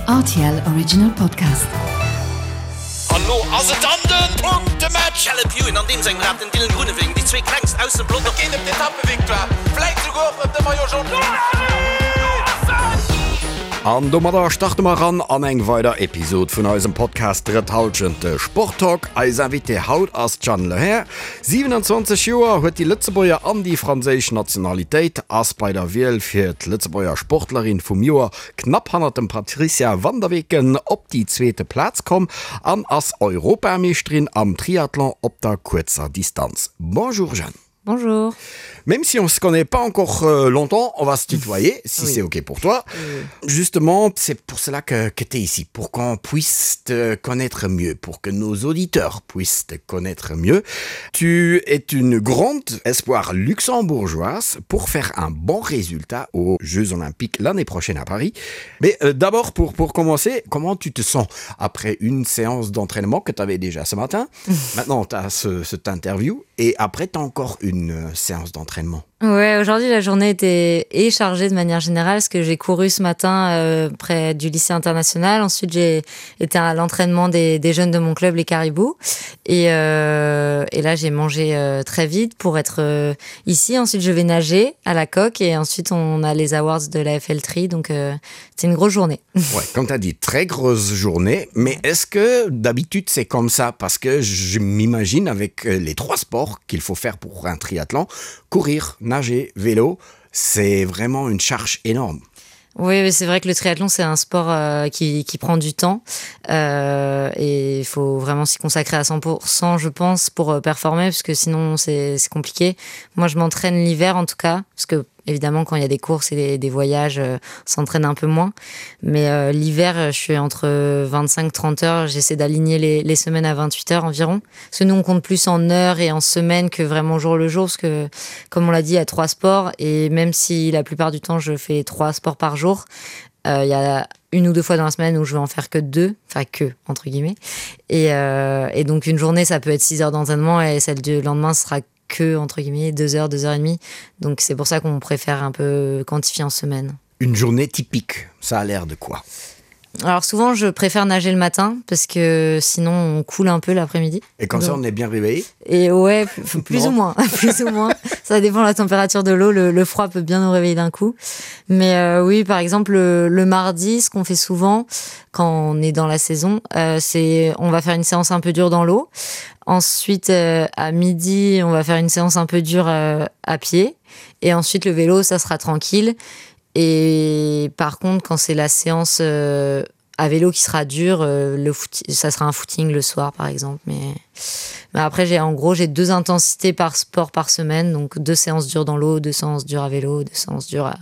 RTL Original Podcast. An lo ass et dann den Punktematch! Caleb Ewan an deem sengem Rad, den Dylan Groenewegen, déi zwee klengst aus dem Pelotong. Et geet ëm d'Etappevictoire, vläit souguer och ëm de Maillot Jaune. An domadder starte mer eran an eng weider Episod vun eisem Podcast Drëtt Hallschent, de Sporttalk. Eis Invitée haut ass d'Jeanne Lehair. 27 Joer, huet déi Lëtzebuerger an déi franséisch Nationalitéit, ass bei der Wiel fir d'Lëtzebuerger Sportlerin vum Joer knapp hannert dem Patricia van der Weken op déi zweete Plaz komm an ass Europameeschterin am Triathlon op der kuerzer Distanz. Bonjour Jeanne. Bonjour. Même si on se connaît pas encore euh, longtemps, on va se tutoyer, si oui. c'est OK pour toi. Oui. Justement, c'est pour cela que, que tu es ici, pour qu'on puisse te connaître mieux, pour que nos auditeurs puissent te connaître mieux. Tu es une grande espoir luxembourgeoise pour faire un bon résultat aux Jeux Olympiques l'année prochaine à Paris. Mais euh, d'abord, pour, pour commencer, comment tu te sens après une séance d'entraînement que tu avais déjà ce matin Maintenant, tu as ce, cette interview et après, tu as encore une euh, séance d'entraînement. Ouais, aujourd'hui, la journée était est chargée de manière générale parce que j'ai couru ce matin euh, près du lycée international. Ensuite, j'ai été à l'entraînement des, des jeunes de mon club, les Caribous. Et, euh, et là, j'ai mangé euh, très vite pour être euh, ici. Ensuite, je vais nager à la coque et ensuite, on a les awards de la FL3. Donc, euh, c'est une grosse journée. Ouais, comme tu as dit, très grosse journée. Mais est-ce que d'habitude, c'est comme ça Parce que je m'imagine avec euh, les trois sports qu'il faut faire pour un triathlon, courir, nager, vélo, c'est vraiment une charge énorme. Oui, c'est vrai que le triathlon c'est un sport euh, qui, qui prend du temps euh, et il faut vraiment s'y consacrer à 100% je pense pour euh, performer parce que sinon c'est compliqué. Moi je m'entraîne l'hiver en tout cas parce que évidemment quand il y a des courses et des, des voyages euh, s'entraîne un peu moins mais euh, l'hiver euh, je suis entre 25 30 heures j'essaie d'aligner les, les semaines à 28 heures environ parce que nous on compte plus en heures et en semaines que vraiment jour le jour parce que comme on l'a dit il y a trois sports et même si la plupart du temps je fais trois sports par jour euh, il y a une ou deux fois dans la semaine où je vais en faire que deux enfin que entre guillemets et, euh, et donc une journée ça peut être 6 heures d'entraînement et celle du lendemain sera que entre guillemets deux heures deux heures et demie donc c'est pour ça qu'on préfère un peu quantifier en semaine une journée typique ça a l'air de quoi alors souvent je préfère nager le matin parce que sinon on coule un peu l'après-midi et comme donc, ça on est bien réveillé et ouais plus ou moins plus ou moins ça dépend la température de l'eau le, le froid peut bien nous réveiller d'un coup mais euh, oui par exemple le, le mardi ce qu'on fait souvent quand on est dans la saison euh, c'est on va faire une séance un peu dure dans l'eau ensuite euh, à midi on va faire une séance un peu dure euh, à pied et ensuite le vélo ça sera tranquille et par contre quand c'est la séance euh, à vélo qui sera dur euh, le foot, ça sera un footing le soir par exemple mais mais après j'ai en gros j'ai deux intensités par sport par semaine donc deux séances dures dans l'eau deux séances dures à vélo deux séances dures à,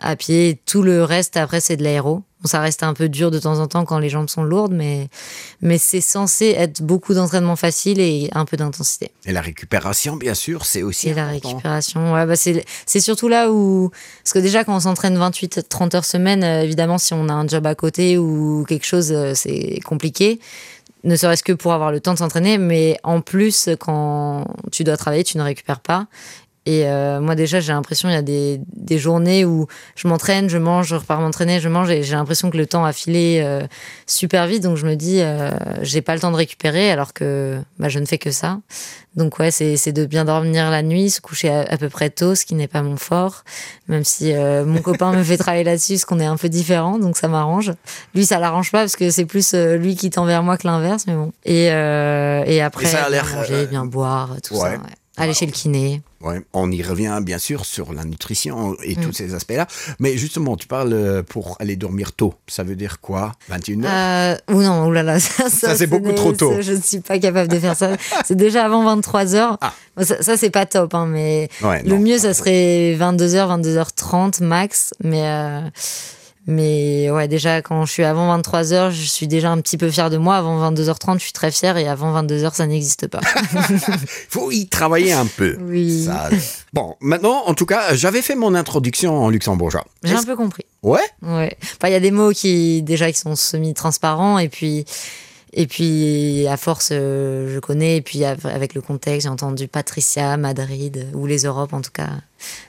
à pied et tout le reste après c'est de l'aéro bon, ça reste un peu dur de temps en temps quand les jambes sont lourdes mais mais c'est censé être beaucoup d'entraînement facile et un peu d'intensité et la récupération bien sûr c'est aussi et la récupération ouais, bah c'est surtout là où parce que déjà quand on s'entraîne 28 30 heures semaine euh, évidemment si on a un job à côté ou quelque chose euh, c'est compliqué ne serait-ce que pour avoir le temps de s'entraîner mais en plus quand tu dois travailler tu ne récupères pas Et euh, moi déjà j'ai l'impression il y a des, des journées où je m'entraîne, je mange, je repars m'entraîner, je mange et j'ai l'impression que le temps a filé euh, super vite donc je me dis euh, j'ai pas le temps de récupérer alors que bah, je ne fais que ça. Donc ouais c'est de bien dormir la nuit, se coucher à, à peu près tôt, ce qui n'est pas mon fort, même si euh, mon copain me fait travailler là-dessus ce qu'on est un peu différent donc ça m'arrange. Lui ça l'arrange pas parce que c'est plus euh, lui qui tend vers moi que l'inverse mais bon. Et, euh, et après et ça a bien manger, euh... bien boire tout ouais. ça. Ouais. Aller chez le kiné. Ouais, on y revient bien sûr sur la nutrition et mm. tous ces aspects-là. Mais justement, tu parles euh, pour aller dormir tôt. Ça veut dire quoi 21 euh, ou non, oulala, ça, ça, ça c'est beaucoup trop tôt. Je ne suis pas capable de faire ça. C'est déjà avant 23 heures. Ah. Ça, ça c'est pas top, hein, mais ouais, le non, mieux, ça serait 22h, 22h30 max. Mais. Euh, Mais ouais, déjà quand je suis avant 23 heures, je suis déjà un petit peu fier de moi. Avant 22h30, je suis très fier et avant 22 heures, ça n'existe pas. Faut y travailler un peu. Oui. Ça... Bon, maintenant, en tout cas, j'avais fait mon introduction en luxembourgeois. J'ai un peu compris. Ouais Ouais. Enfin, il y a des mots qui déjà qui sont semi-transparents et puis. Et puis à force, je connais. Et puis avec le contexte, j'ai entendu Patricia, Madrid ou les Europes en tout cas.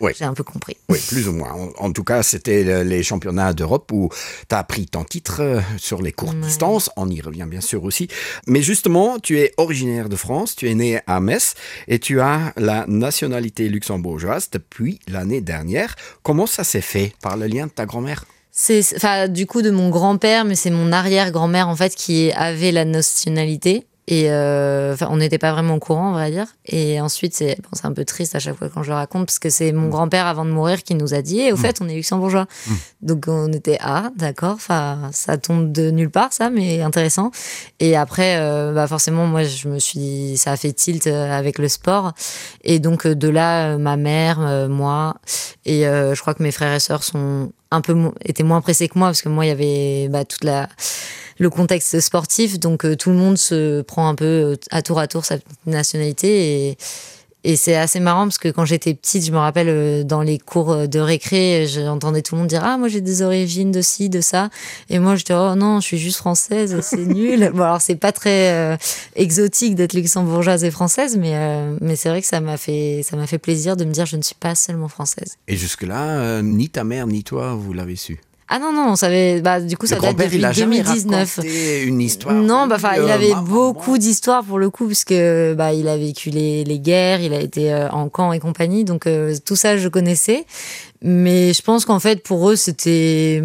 Oui. J'ai un peu compris. Oui, plus ou moins. En, en tout cas, c'était les championnats d'Europe où tu as pris ton titre euh, sur les courtes ouais. distances. On y revient bien sûr aussi. Mais justement, tu es originaire de France, tu es né à Metz et tu as la nationalité luxembourgeoise depuis l'année dernière. Comment ça s'est fait par le lien de ta grand-mère C'est enfin du coup de mon grand-père, mais c'est mon arrière-grand-mère en fait qui avait la nationalité et euh, on n'était pas vraiment au courant on va dire et ensuite c'est bon, un peu triste à chaque fois quand je le raconte parce que c'est mon mm. grand-père avant de mourir qui nous a dit et au mm. fait on est luxembourgeois mm. donc on était ah d'accord enfin ça tombe de nulle part ça mais intéressant et après euh, bah forcément moi je me suis ça a fait tilt euh, avec le sport et donc euh, de là euh, ma mère euh, moi et euh, je crois que mes frères et sœurs sont un peu étaient moins pressés que moi parce que moi il y avait bah, toute la le contexte sportif donc euh, tout le monde se prend un peu euh, à tour à tour sa nationalité et et c'est assez marrant parce que quand j'étais petite je me rappelle euh, dans les cours euh, de récré j'entendais tout le monde dire ah moi j'ai des origines de ci de ça et moi j'étais oh non je suis juste française c'est nul bon alors c'est pas très euh, exotique d'être luxembourgeoise et française mais euh, mais c'est vrai que ça m'a fait ça m'a fait plaisir de me dire je ne suis pas seulement française et jusque là euh, ni ta mère ni toi vous l'avez su Ah non non on savait bah du coup le ça date grand-père, depuis il a jamais 2019 raconté une histoire non bah enfin il euh, avait maman, beaucoup d'histoires pour le coup parce que bah il a vécu les, les guerres il a été euh, en camp et compagnie donc euh, tout ça je connaissais mais je pense qu'en fait pour eux c'était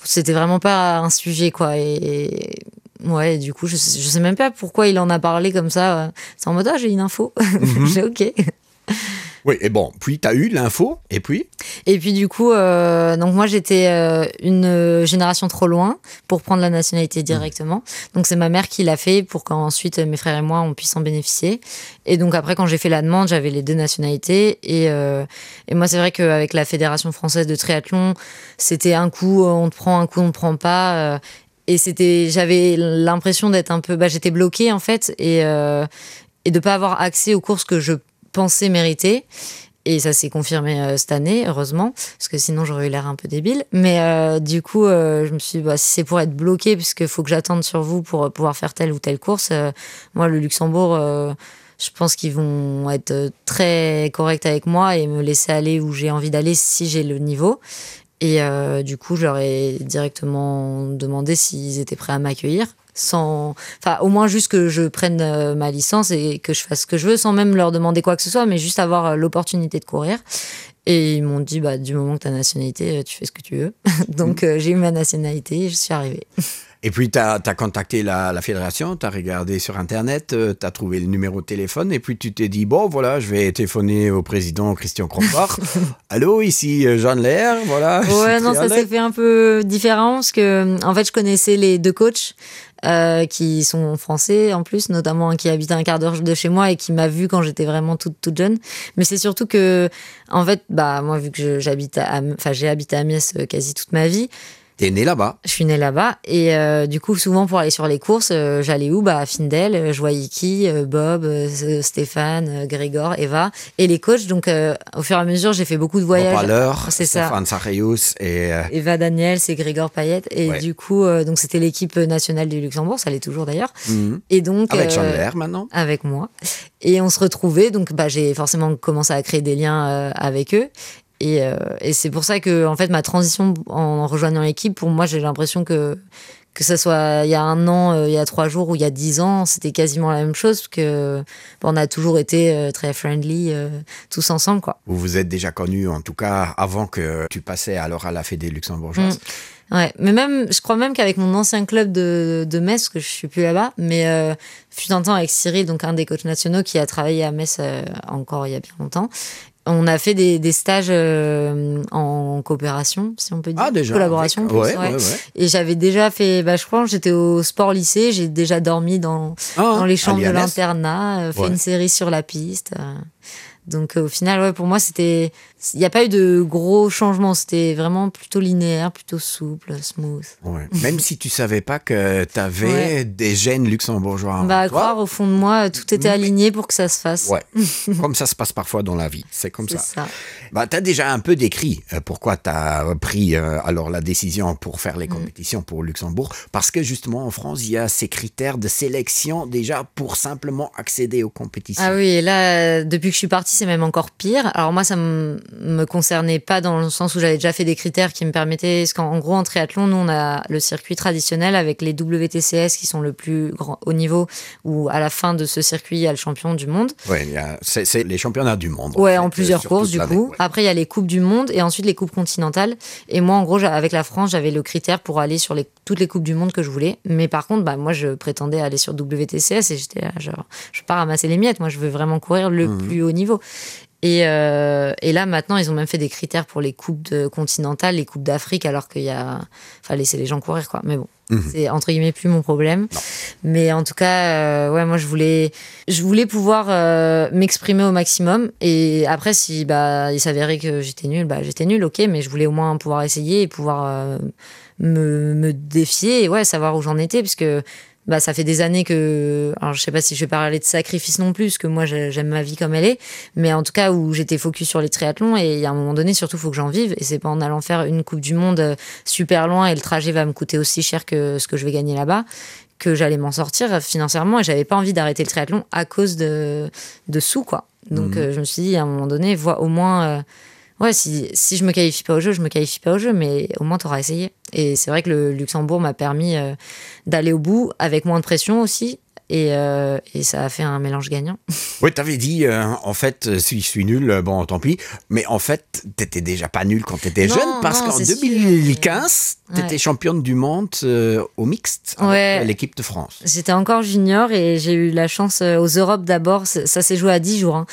c'était vraiment pas un sujet quoi et, et ouais et du coup je sais, je sais même pas pourquoi il en a parlé comme ça c'est en mode ah, j'ai une info mm -hmm. j'ai ok Oui, et bon, puis tu as eu l'info, et puis Et puis du coup, euh, donc moi j'étais euh, une génération trop loin pour prendre la nationalité directement. Mmh. Donc c'est ma mère qui l'a fait pour qu'ensuite mes frères et moi on puisse en bénéficier. Et donc après quand j'ai fait la demande, j'avais les deux nationalités. Et, euh, et moi c'est vrai qu'avec la Fédération française de triathlon, c'était un coup on te prend, un coup on ne prend pas. Euh, et c'était j'avais l'impression d'être un peu bah, j'étais bloquée en fait et, euh, et de pas avoir accès aux courses que je pensais mériter. Et ça s'est confirmé euh, cette année, heureusement, parce que sinon j'aurais eu l'air un peu débile. Mais euh, du coup, euh, je me suis dit, bah, si c'est pour être bloqué, puisque faut que j'attende sur vous pour euh, pouvoir faire telle ou telle course, euh, moi, le Luxembourg, euh, je pense qu'ils vont être euh, très corrects avec moi et me laisser aller où j'ai envie d'aller si j'ai le niveau. Et euh, du coup, je leur ai directement demandé s'ils étaient prêts à m'accueillir sans enfin au moins juste que je prenne euh, ma licence et que je fasse ce que je veux sans même leur demander quoi que ce soit mais juste avoir euh, l'opportunité de courir et ils m'ont dit bah du moment que ta nationalité euh, tu fais ce que tu veux donc mmh. euh, j'ai eu ma nationalité et je suis arrivée Et puis tu as, as contacté la, la fédération, tu as regardé sur internet, euh, tu as trouvé le numéro de téléphone et puis tu t'es dit bon voilà, je vais téléphoner au président Christian Crombard. Allô, ici euh, Jean Lair, voilà. Ouais, non, ça s'est fait un peu différent parce que en fait je connaissais les deux coachs euh, qui sont français en plus, notamment un qui habite à un quart d'heure de chez moi et qui m'a vu quand j'étais vraiment toute, toute jeune. Mais c'est surtout que en fait bah moi vu que j'habite enfin j'ai habité à Amiens euh, quasi toute ma vie, T'es né là-bas. Je suis née là-bas et euh, du coup souvent pour aller sur les courses, euh, j'allais où bah à Findel, euh, je voyais qui euh, Bob, euh, Stéphane, euh, Grégor, Eva et les coachs. Donc euh, au fur et à mesure, j'ai fait beaucoup de voyages. C'est ça. Stéphane Sarrius et euh... Eva Daniel, c'est Grégor Payette et ouais. du coup euh, donc c'était l'équipe nationale du Luxembourg, ça l'est toujours d'ailleurs. Mmh. Et donc avec euh, maintenant. Avec moi et on se retrouvait donc bah j'ai forcément commencé à créer des liens euh, avec eux Et, euh, et c'est pour ça que en fait ma transition en rejoignant l'équipe pour moi j'ai l'impression que que ça soit il y a un an euh, il y a trois jours ou il y a dix ans c'était quasiment la même chose que bon, on a toujours été euh, très friendly euh, tous ensemble quoi vous vous êtes déjà connu en tout cas avant que tu passais alors à la fédé luxembourgeoise mmh. ouais mais même je crois même qu'avec mon ancien club de, de Metz que je suis plus là bas mais euh, fut un temps avec Cyril donc un des coachs nationaux qui a travaillé à Metz euh, encore il y a bien longtemps on a fait des, des stages euh, en coopération si on peut dire ah, déjà, collaboration avec... plus, ouais, ouais. Ouais, ouais. et j'avais déjà fait bah, je crois j'étais au sport lycée j'ai déjà dormi dans, ah, dans les chambres de l'internat euh, fait ouais. une série sur la piste euh. Donc au final, ouais, pour moi, c'était, il n'y a pas eu de gros changements. C'était vraiment plutôt linéaire, plutôt souple, smooth. Ouais. Même si tu savais pas que tu avais ouais. des gènes luxembourgeois. Bah, à croire, au fond de moi, tout était aligné pour que ça se fasse. Ouais. comme ça se passe parfois dans la vie. C'est comme ça. ça. Bah, tu as déjà un peu décrit euh, pourquoi tu as pris euh, alors la décision pour faire les mm. compétitions mm. pour Luxembourg. Parce que justement, en France, il y a ces critères de sélection déjà pour simplement accéder aux compétitions. Ah oui, et là, depuis que je suis partie, c'est même encore pire. Alors moi, ça me concernait pas dans le sens où j'avais déjà fait des critères qui me permettaient... Parce qu'en gros, en triathlon, nous, on a le circuit traditionnel avec les WTCS qui sont le plus grand haut niveau, où à la fin de ce circuit, il y a le champion du monde. Ouais, c'est les championnats du monde. Ouais, en, en plusieurs courses, du coup. Ouais. Après, il y a les coupes du monde et ensuite les coupes continentales. Et moi, en gros, avec la France, j'avais le critère pour aller sur les, toutes les coupes du monde que je voulais. Mais par contre, bah, moi, je prétendais aller sur WTCS et j'étais là, genre, je veux pas ramasser les miettes. Moi, je veux vraiment courir le mmh. plus haut niveau. Et, euh, et là, maintenant, ils ont même fait des critères pour les coupes de continentales, les coupes d'Afrique, alors qu'il y a. Enfin, laisser les gens courir, quoi. Mais bon, mmh. c'est entre guillemets plus mon problème. Non. Mais en tout cas, euh, ouais, moi, je voulais, je voulais pouvoir euh, m'exprimer au maximum. Et après, si bah, il s'avérait que j'étais nulle, bah, j'étais nulle, ok, mais je voulais au moins pouvoir essayer et pouvoir euh, me, me défier et ouais, savoir où j'en étais, parce que bah, ça fait des années que alors je sais pas si je vais parler de sacrifice non plus parce que moi j'aime ma vie comme elle est mais en tout cas où j'étais focus sur les triathlons et il y a un moment donné surtout faut que j'en vive et c'est pas en allant faire une coupe du monde euh, super loin et le trajet va me coûter aussi cher que ce que je vais gagner là bas que j'allais m'en sortir financièrement et j'avais pas envie d'arrêter le triathlon à cause de de sous quoi donc mmh. euh, je me suis dit à un moment donné vois au moins euh, ouais si, si je me qualifie pas au jeu je me qualifie pas au jeu mais au moins tu auras essayé et c'est vrai que le Luxembourg m'a permis euh, d'aller au bout avec moins de pression aussi et, euh, et ça a fait un mélange gagnant. Oui, tu avais dit euh, en fait euh, si je suis nul euh, bon tant pis mais en fait tu déjà pas nul quand tu étais jeune parce qu'en 2015 tu étais ouais. championne du monde euh, au mixte ouais. l'équipe de France. J'étais encore junior et j'ai eu la chance euh, aux Europes d'abord ça s'est joué à 10 jours hein.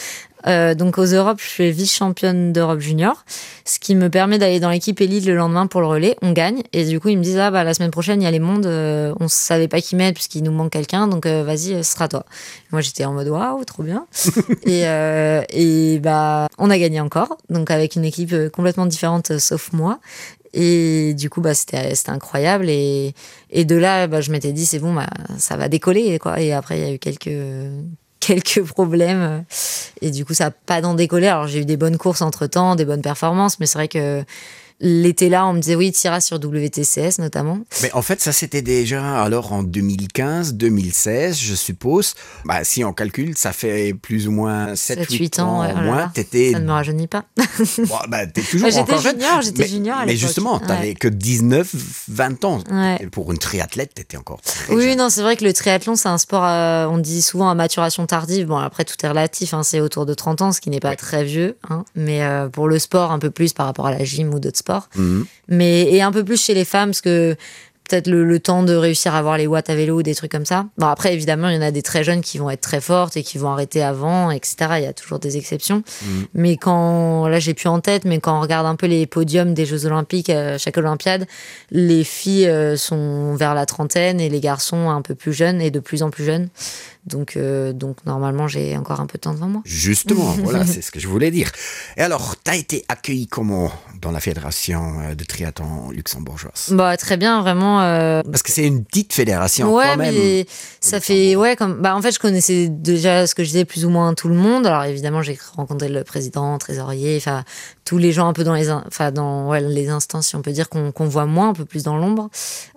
Euh, donc aux Europes, je suis vice-championne d'Europe junior, ce qui me permet d'aller dans l'équipe élite le lendemain pour le relais. On gagne et du coup ils me disent ah bah la semaine prochaine il y a les mondes, euh, on savait pas qui mettre puisqu'il nous manque quelqu'un, donc euh, vas-y ce sera toi. Moi j'étais en mode waouh trop bien et, euh, et bah on a gagné encore, donc avec une équipe euh, complètement différente euh, sauf moi. Et du coup bah c'était incroyable et, et de là bah, je m'étais dit c'est bon bah, ça va décoller quoi et après il y a eu quelques quelques problèmes et du coup ça a pas d'en décoller alors j'ai eu des bonnes courses entre temps des bonnes performances mais c'est vrai que l'été là on me disait oui tira sur WTCS notamment mais en fait ça c'était déjà alors en 2015 2016 je suppose bah, si on calcule ça fait plus ou moins 7 8 ans, ans ouais, oh moins t'étais ça ne me rajeunit pas bon, bah, t'es toujours bah, junior j'étais junior mais justement t'avais ouais. que 19 20 ans ouais. pour une triathlète t'étais encore oui jeune. non c'est vrai que le triathlon c'est un sport euh, on dit souvent à maturation tardive bon après tout est relatif hein, c'est autour de 30 ans ce qui n'est pas ouais. très vieux hein, mais euh, pour le sport un peu plus par rapport à la gym ou d'autres sports mmh. mais et un peu plus chez les femmes parce que peut-être le, le temps de réussir à avoir les watts à vélo ou des trucs comme ça bon après évidemment il y en a des très jeunes qui vont être très fortes et qui vont arrêter avant etc il y a toujours des exceptions mmh. mais quand là j'ai plus en tête mais quand on regarde un peu les podiums des jeux olympiques à euh, chaque olympiade les filles euh, sont vers la trentaine et les garçons un peu plus jeunes et de plus en plus jeunes donc euh, donc normalement j'ai encore un peu de temps devant moi justement voilà c'est ce que je voulais dire et alors tu as été accueilli comment dans la fédération euh, de triathlon luxembourgeoise bah très bien vraiment euh... parce que c'est une petite fédération ouais quand même, mais ça fait ouais comme bah en fait je connaissais déjà ce que je disais plus ou moins tout le monde alors évidemment j'ai rencontré le président trésorier enfin tous les gens un peu dans les enfin dans ouais, les instances si on peut dire qu'on qu voit moins un peu plus dans l'ombre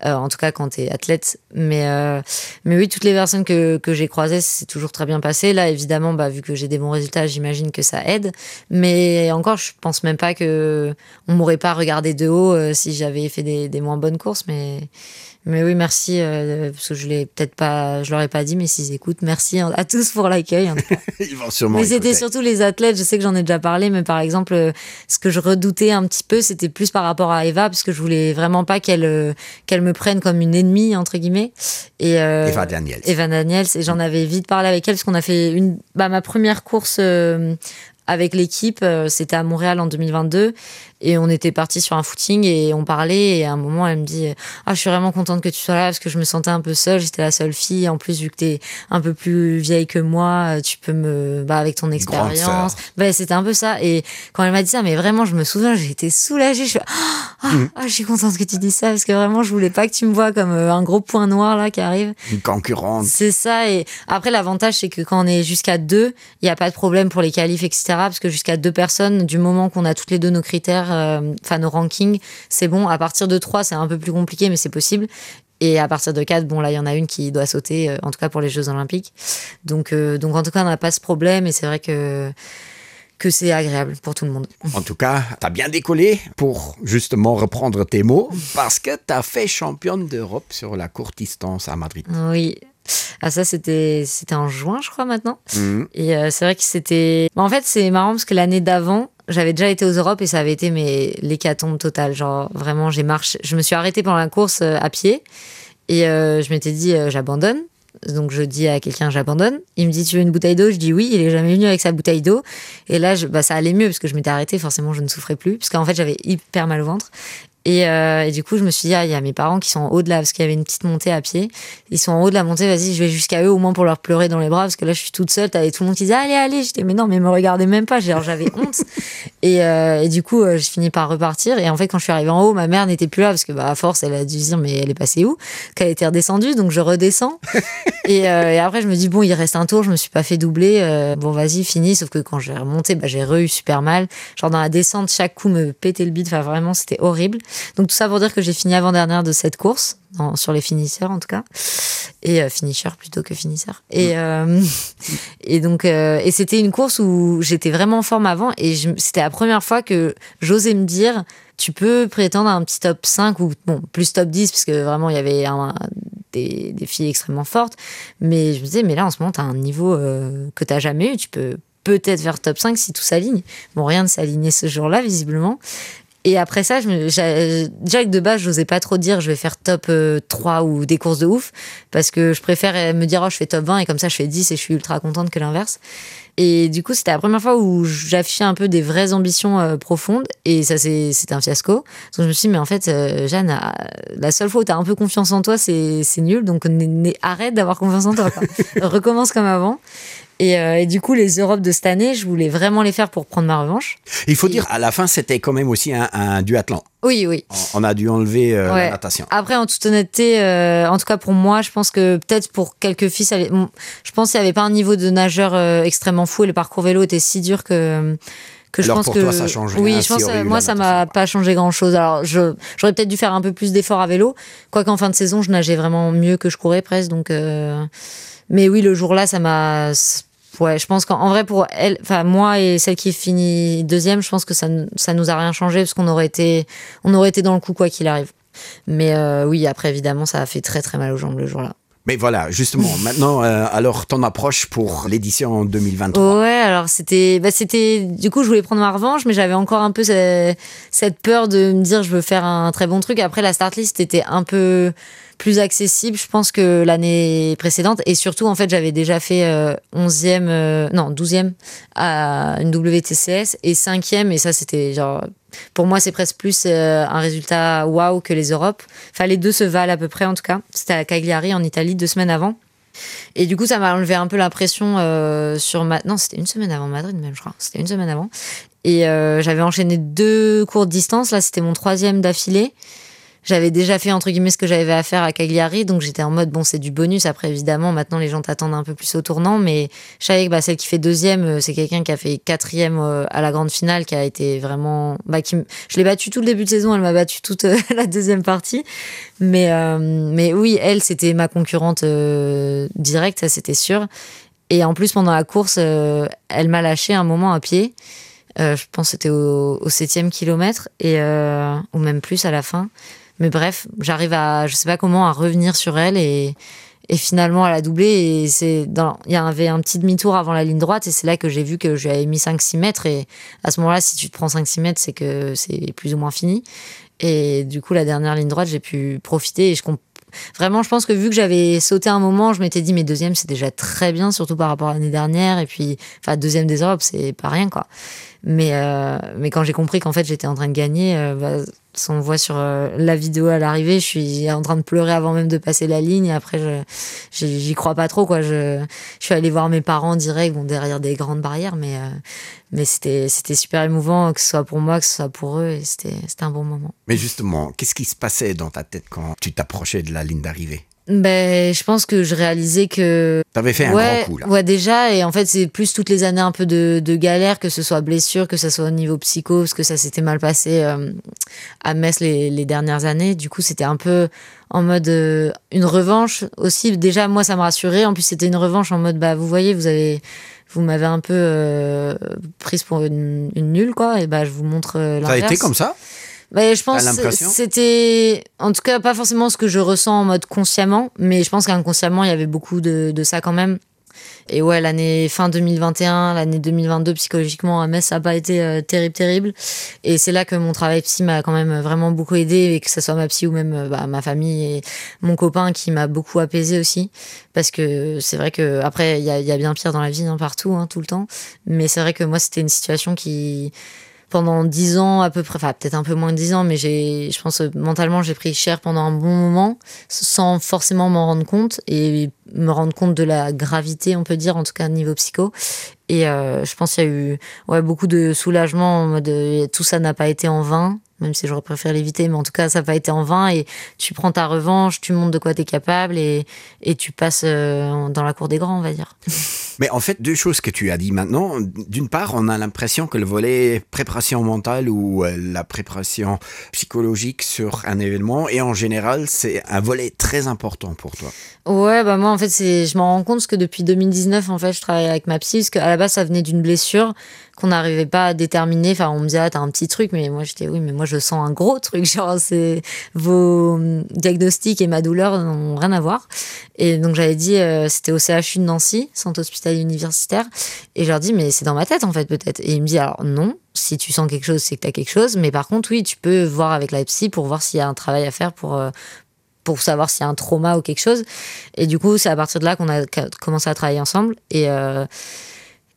euh, en tout cas quand tu es athlète mais euh, mais oui toutes les personnes que, que j'ai croisées c'est toujours très bien passé là évidemment bah vu que j'ai des bons résultats j'imagine que ça aide mais encore je pense même pas que on m'aurait pas regardé de haut euh, si j'avais fait des, des moins bonnes courses mais Mais oui merci euh, parce que je l'ai peut-être pas je leur ai pas dit mais s'ils écoutent merci à tous pour l'accueil mais c'était surtout les athlètes je sais que j'en ai déjà parlé mais par exemple euh, ce que je redoutais un petit peu c'était plus par rapport à Eva parce que je voulais vraiment pas qu'elle euh, qu'elle me prenne comme une ennemie entre guillemets et euh, Eva Daniels Eva Daniels et j'en avais vite parlé avec elle parce qu'on a fait une bah, ma première course euh, avec l'équipe euh, c'était à Montréal en 2022 Et on était parti sur un footing et on parlait. Et à un moment, elle me dit Ah, je suis vraiment contente que tu sois là parce que je me sentais un peu seule. J'étais la seule fille. En plus, vu que t'es un peu plus vieille que moi, tu peux me. Bah, avec ton expérience. Bah, c'était un peu ça. Et quand elle m'a dit ça, mais vraiment, je me souviens, j'ai été soulagée. Je suis ah, mmh. ah, je suis contente que tu dis ça parce que vraiment, je voulais pas que tu me vois comme euh, un gros point noir là qui arrive. Une concurrente. C'est ça. Et après, l'avantage, c'est que quand on est jusqu'à deux, il n'y a pas de problème pour les qualifs, etc. Parce que jusqu'à deux personnes, du moment qu'on a toutes les deux nos critères, euh, enfin euh, nos rankings, c'est bon. À partir de trois, c'est un peu plus compliqué, mais c'est possible. Et à partir de quatre, bon là, il y en a une qui doit sauter, euh, en tout cas pour les Jeux Olympiques. Donc, euh, donc en tout cas, on n'a pas ce problème et c'est vrai que que c'est agréable pour tout le monde. En tout cas, tu as bien décollé pour justement reprendre tes mots parce que tu as fait championne d'Europe sur la courte distance à Madrid. Oui. Ah ça c'était c'était en juin je crois maintenant mmh. et euh, c'est vrai que c'était en fait c'est marrant parce que l'année d'avant j'avais déjà été aux Europes et ça avait été mais l'hécatombe totale genre vraiment j'ai marché je me suis arrêtée pendant la course euh, à pied et euh, je m'étais dit euh, j'abandonne donc je dis à quelqu'un j'abandonne il me dit tu veux une bouteille d'eau je dis oui il est jamais venu avec sa bouteille d'eau et là je, bah, ça allait mieux parce que je m'étais arrêtée forcément je ne souffrais plus parce qu'en fait j'avais hyper mal au ventre Et, euh, et du coup, je me suis dit, ah, il y a mes parents qui sont en haut de la, parce qu'il y avait une petite montée à pied. Ils sont en haut de la montée, vas-y, je vais jusqu'à eux au moins pour leur pleurer dans les bras, parce que là, je suis toute seule, t'avais tout le monde qui disait, allez, allez. J'étais, mais non, mais me regardez même pas, j'avais honte. Et, euh, et du coup, euh, j'ai fini par repartir. Et en fait, quand je suis arrivée en haut, ma mère n'était plus là, parce que, bah, à force, elle a dû se dire, mais elle est passée où? Qu'elle était redescendue, donc je redescends. et, euh, et après, je me dis, bon, il reste un tour, je me suis pas fait doubler. Euh, bon, vas-y, fini. Sauf que quand j'ai remonté, bah, j'ai re eu super mal. Genre, dans la descente, chaque coup me pétait le bide. Enfin, vraiment, c'était horrible. Donc tout ça pour dire que j'ai fini avant-dernière de cette course, dans, sur les finisseurs en tout cas, et euh, finisher plutôt que finisseur. Et, mmh. euh, et donc euh, et c'était une course où j'étais vraiment en forme avant et c'était la première fois que j'osais me dire tu peux prétendre à un petit top 5 ou bon, plus top 10 parce que vraiment il y avait un, des, des filles extrêmement fortes mais je me disais mais là en ce moment tu as un niveau euh, que tu n'as jamais eu tu peux peut-être faire top 5 si tout s'aligne bon rien ne s'alignait ce jour là visiblement Et après ça, je me, déjà que de base, j'osais pas trop dire je vais faire top 3 euh, ou des courses de ouf, parce que je préfère euh, me dire oh, je fais top 20 et comme ça je fais 10 et je suis ultra contente que l'inverse. Et du coup, c'était la première fois où j'affichais un peu des vraies ambitions euh, profondes et ça c'est un fiasco. Donc je me suis dit, mais en fait, euh, Jeanne, euh, la seule fois où tu as un peu confiance en toi, c'est nul, donc arrête d'avoir confiance en toi. Quoi. Recommence comme avant. Et, euh, et du coup, les Europes de cette année, je voulais vraiment les faire pour prendre ma revanche. Il faut et... dire, à la fin, c'était quand même aussi un, un duathlon. Oui, oui. On a dû enlever euh, ouais. la natation. Après, en toute honnêteté, euh, en tout cas pour moi, je pense que peut-être pour quelques filles, ça, je pense qu'il n'y avait pas un niveau de nageur euh, extrêmement fou et le parcours vélo était si dur que que je Alors pense pour que toi, ça change oui rien, je pense si moi ça m'a pas changé grand chose alors je j'aurais peut-être dû faire un peu plus d'efforts à vélo quoi qu'en fin de saison je nageais vraiment mieux que je courais presque donc euh... mais oui le jour là ça m'a ouais je pense qu'en vrai pour elle enfin moi et celle qui finit deuxième je pense que ça ça nous a rien changé parce qu'on aurait été on aurait été dans le coup quoi qu'il arrive mais euh, oui après évidemment ça a fait très très mal aux jambes le jour là Mais voilà, justement, maintenant, euh, alors ton approche pour l'édition 2023. Ouais, alors c'était, bah, c'était, du coup, je voulais prendre ma revanche, mais j'avais encore un peu cette, cette peur de me dire je veux faire un très bon truc. Après, la start list était un peu plus accessible, je pense, que l'année précédente. Et surtout, en fait, j'avais déjà fait euh, 11e, euh, non, 12e à une WTCS et 5e, et ça, c'était genre. Pour moi, c'est presque plus euh, un résultat waouh que les Europes. Enfin, les deux se valent à peu près, en tout cas. C'était à Cagliari, en Italie, deux semaines avant. Et du coup, ça m'a enlevé un peu la pression euh, sur ma... Non, c'était une semaine avant Madrid, même, je crois. C'était une semaine avant. Et euh, j'avais enchaîné deux courtes distances. Là, c'était mon troisième d'affilée j'avais déjà fait entre guillemets ce que j'avais à faire à Cagliari, donc j'étais en mode bon c'est du bonus. Après évidemment maintenant les gens t'attendent un peu plus au tournant, mais je savais que bah, celle qui fait deuxième, euh, c'est quelqu'un qui a fait quatrième euh, à la grande finale, qui a été vraiment, bah, qui je l'ai battue tout le début de saison, elle m'a battu toute euh, la deuxième partie, mais euh, mais oui elle c'était ma concurrente euh, directe, ça c'était sûr. Et en plus pendant la course, euh, elle m'a lâché un moment à pied. Euh, je pense c'était au, au septième kilomètre et euh, ou même plus à la fin. Mais bref, j'arrive à je sais pas comment à revenir sur elle et, et finalement à la doubler et c'est dans il y avait un petit demi-tour avant la ligne droite et c'est là que j'ai vu que j'avais mis 5 6 mètres et à ce moment-là si tu te prends 5 6 mètres, c'est que c'est plus ou moins fini. Et du coup la dernière ligne droite, j'ai pu profiter et je comprends Vraiment, je pense que vu que j'avais sauté un moment, je m'étais dit, mais deuxième, c'est déjà très bien, surtout par rapport à l'année dernière. Et puis, enfin, deuxième des Europes, c'est pas rien, quoi. Mais, euh, mais quand j'ai compris qu'en fait, j'étais en train de gagner, euh, bah, on voit sur euh, la vidéo à l'arrivée, je suis en train de pleurer avant même de passer la ligne. Après, j'y crois pas trop, quoi. Je, je suis allée voir mes parents direct, bon, derrière des grandes barrières, mais, euh, mais c'était super émouvant, que ce soit pour moi, que ce soit pour eux, et c'était un bon moment. Mais justement, qu'est-ce qui se passait dans ta tête quand tu t'approchais de la ligne d'arrivée Ben, je pense que je réalisais que. T'avais fait un ouais, grand coup là. Ouais, déjà. Et en fait, c'est plus toutes les années un peu de, de galère, que ce soit blessure, que ce soit au niveau psycho, parce que ça s'était mal passé euh, à Metz les, les dernières années. Du coup, c'était un peu en mode euh, une revanche aussi. Déjà, moi, ça me rassurait. En plus, c'était une revanche en mode, bah, vous voyez, vous avez. Vous m'avez un peu euh, prise pour une, une nulle, quoi. Et bah, je vous montre euh, Ça a l'inverse. été comme ça Bah, je pense T'as que l'impression c'était en tout cas pas forcément ce que je ressens en mode consciemment, mais je pense qu'inconsciemment il y avait beaucoup de, de ça quand même. Et ouais, l'année fin 2021, l'année 2022 psychologiquement à Metz, ça n'a pas été euh, terrible, terrible. Et c'est là que mon travail psy m'a quand même vraiment beaucoup aidé, et que ce soit ma psy ou même euh, bah, ma famille et mon copain qui m'a beaucoup apaisé aussi. Parce que c'est vrai que après, il y a, il y a bien pire dans la vie, hein, partout, hein, tout le temps. Mais c'est vrai que moi, c'était une situation qui pendant dix ans à peu près, enfin peut-être un peu moins de dix ans, mais j'ai, je pense euh, mentalement j'ai pris cher pendant un bon moment sans forcément m'en rendre compte et me rendre compte de la gravité, on peut dire, en tout cas niveau psycho. Et euh, je pense qu'il y a eu ouais, beaucoup de soulagement en mode euh, tout ça n'a pas été en vain, même si j'aurais préféré l'éviter, mais en tout cas ça n'a pas été en vain et tu prends ta revanche, tu montres de quoi tu es capable et, et tu passes euh, dans la cour des grands, on va dire. Mais en fait, deux choses que tu as dit maintenant. D'une part, on a l'impression que le volet préparation mentale ou euh, la préparation psychologique sur un événement, et en général, c'est un volet très important pour toi. Ouais, bah moi en fait, c'est je m'en rends compte parce que depuis 2019 en fait, je travaille avec ma psy parce qu'à la base ça venait d'une blessure qu'on n'arrivait pas à déterminer. Enfin, on me disait ah, t'as un petit truc, mais moi j'étais oui, mais moi je sens un gros truc, genre c'est vos diagnostics et ma douleur n'ont rien à voir. Et donc j'avais dit euh, c'était au CHU de Nancy, centre hospitalier universitaire, et je leur dis mais c'est dans ma tête en fait peut-être. Et il me dit alors non, si tu sens quelque chose, c'est que t'as quelque chose, mais par contre oui, tu peux voir avec la psy pour voir s'il y a un travail à faire pour euh, pour savoir s'il y a un trauma ou quelque chose. Et du coup, c'est à partir de là qu'on a commencé à travailler ensemble. Et, euh,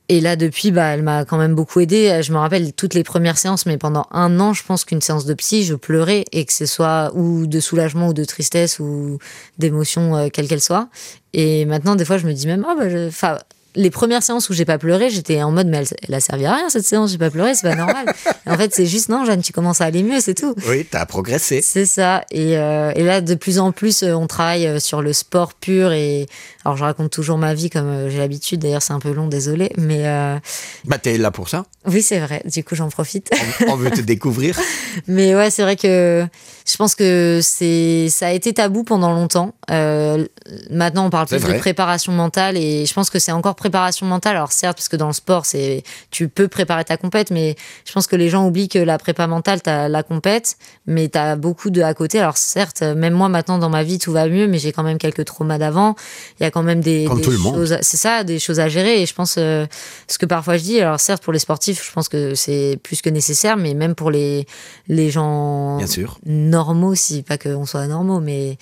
et là, depuis, bah, elle m'a quand même beaucoup aidée. Je me rappelle toutes les premières séances, mais pendant un an, je pense qu'une séance de psy, je pleurais, et que ce soit ou de soulagement ou de tristesse ou d'émotion, euh, quelle qu'elle soit. Et maintenant, des fois, je me dis même, ah, bah, je... enfin, les premières séances où j'ai pas pleuré, j'étais en mode, mais elle, elle a servi à rien cette séance, j'ai pas pleuré, c'est pas normal. Et en fait, c'est juste, non, Jeanne, tu commences à aller mieux, c'est tout. Oui, tu as progressé. C'est ça. Et, euh, et là, de plus en plus, euh, on travaille euh, sur le sport pur. Et alors, je raconte toujours ma vie comme euh, j'ai l'habitude. D'ailleurs, c'est un peu long, désolé. Mais euh, Bah, t'es là pour ça. oui, c'est vrai. Du coup, j'en profite. On, on veut te découvrir. Mais ouais, c'est vrai que je pense que c'est ça a été tabou pendant longtemps. Euh, maintenant, on parle C'est plus vrai. de préparation mentale et je pense que c'est encore préparation mentale. Alors certes, parce que dans le sport, c'est tu peux préparer ta compète, mais je pense que les gens oublient que la prépa mentale, t'as la compète, mais t'as beaucoup de à côté. Alors certes, même moi maintenant dans ma vie, tout va mieux, mais j'ai quand même quelques traumas d'avant. Il y a quand même des, Comme des tout le monde. choses, c'est ça, des choses à gérer. Et je pense euh, ce que parfois je dis. Alors certes, pour les sportifs, je pense que c'est plus que nécessaire, mais même pour les les gens Bien sûr. normaux, si pas qu'on soit normaux, mais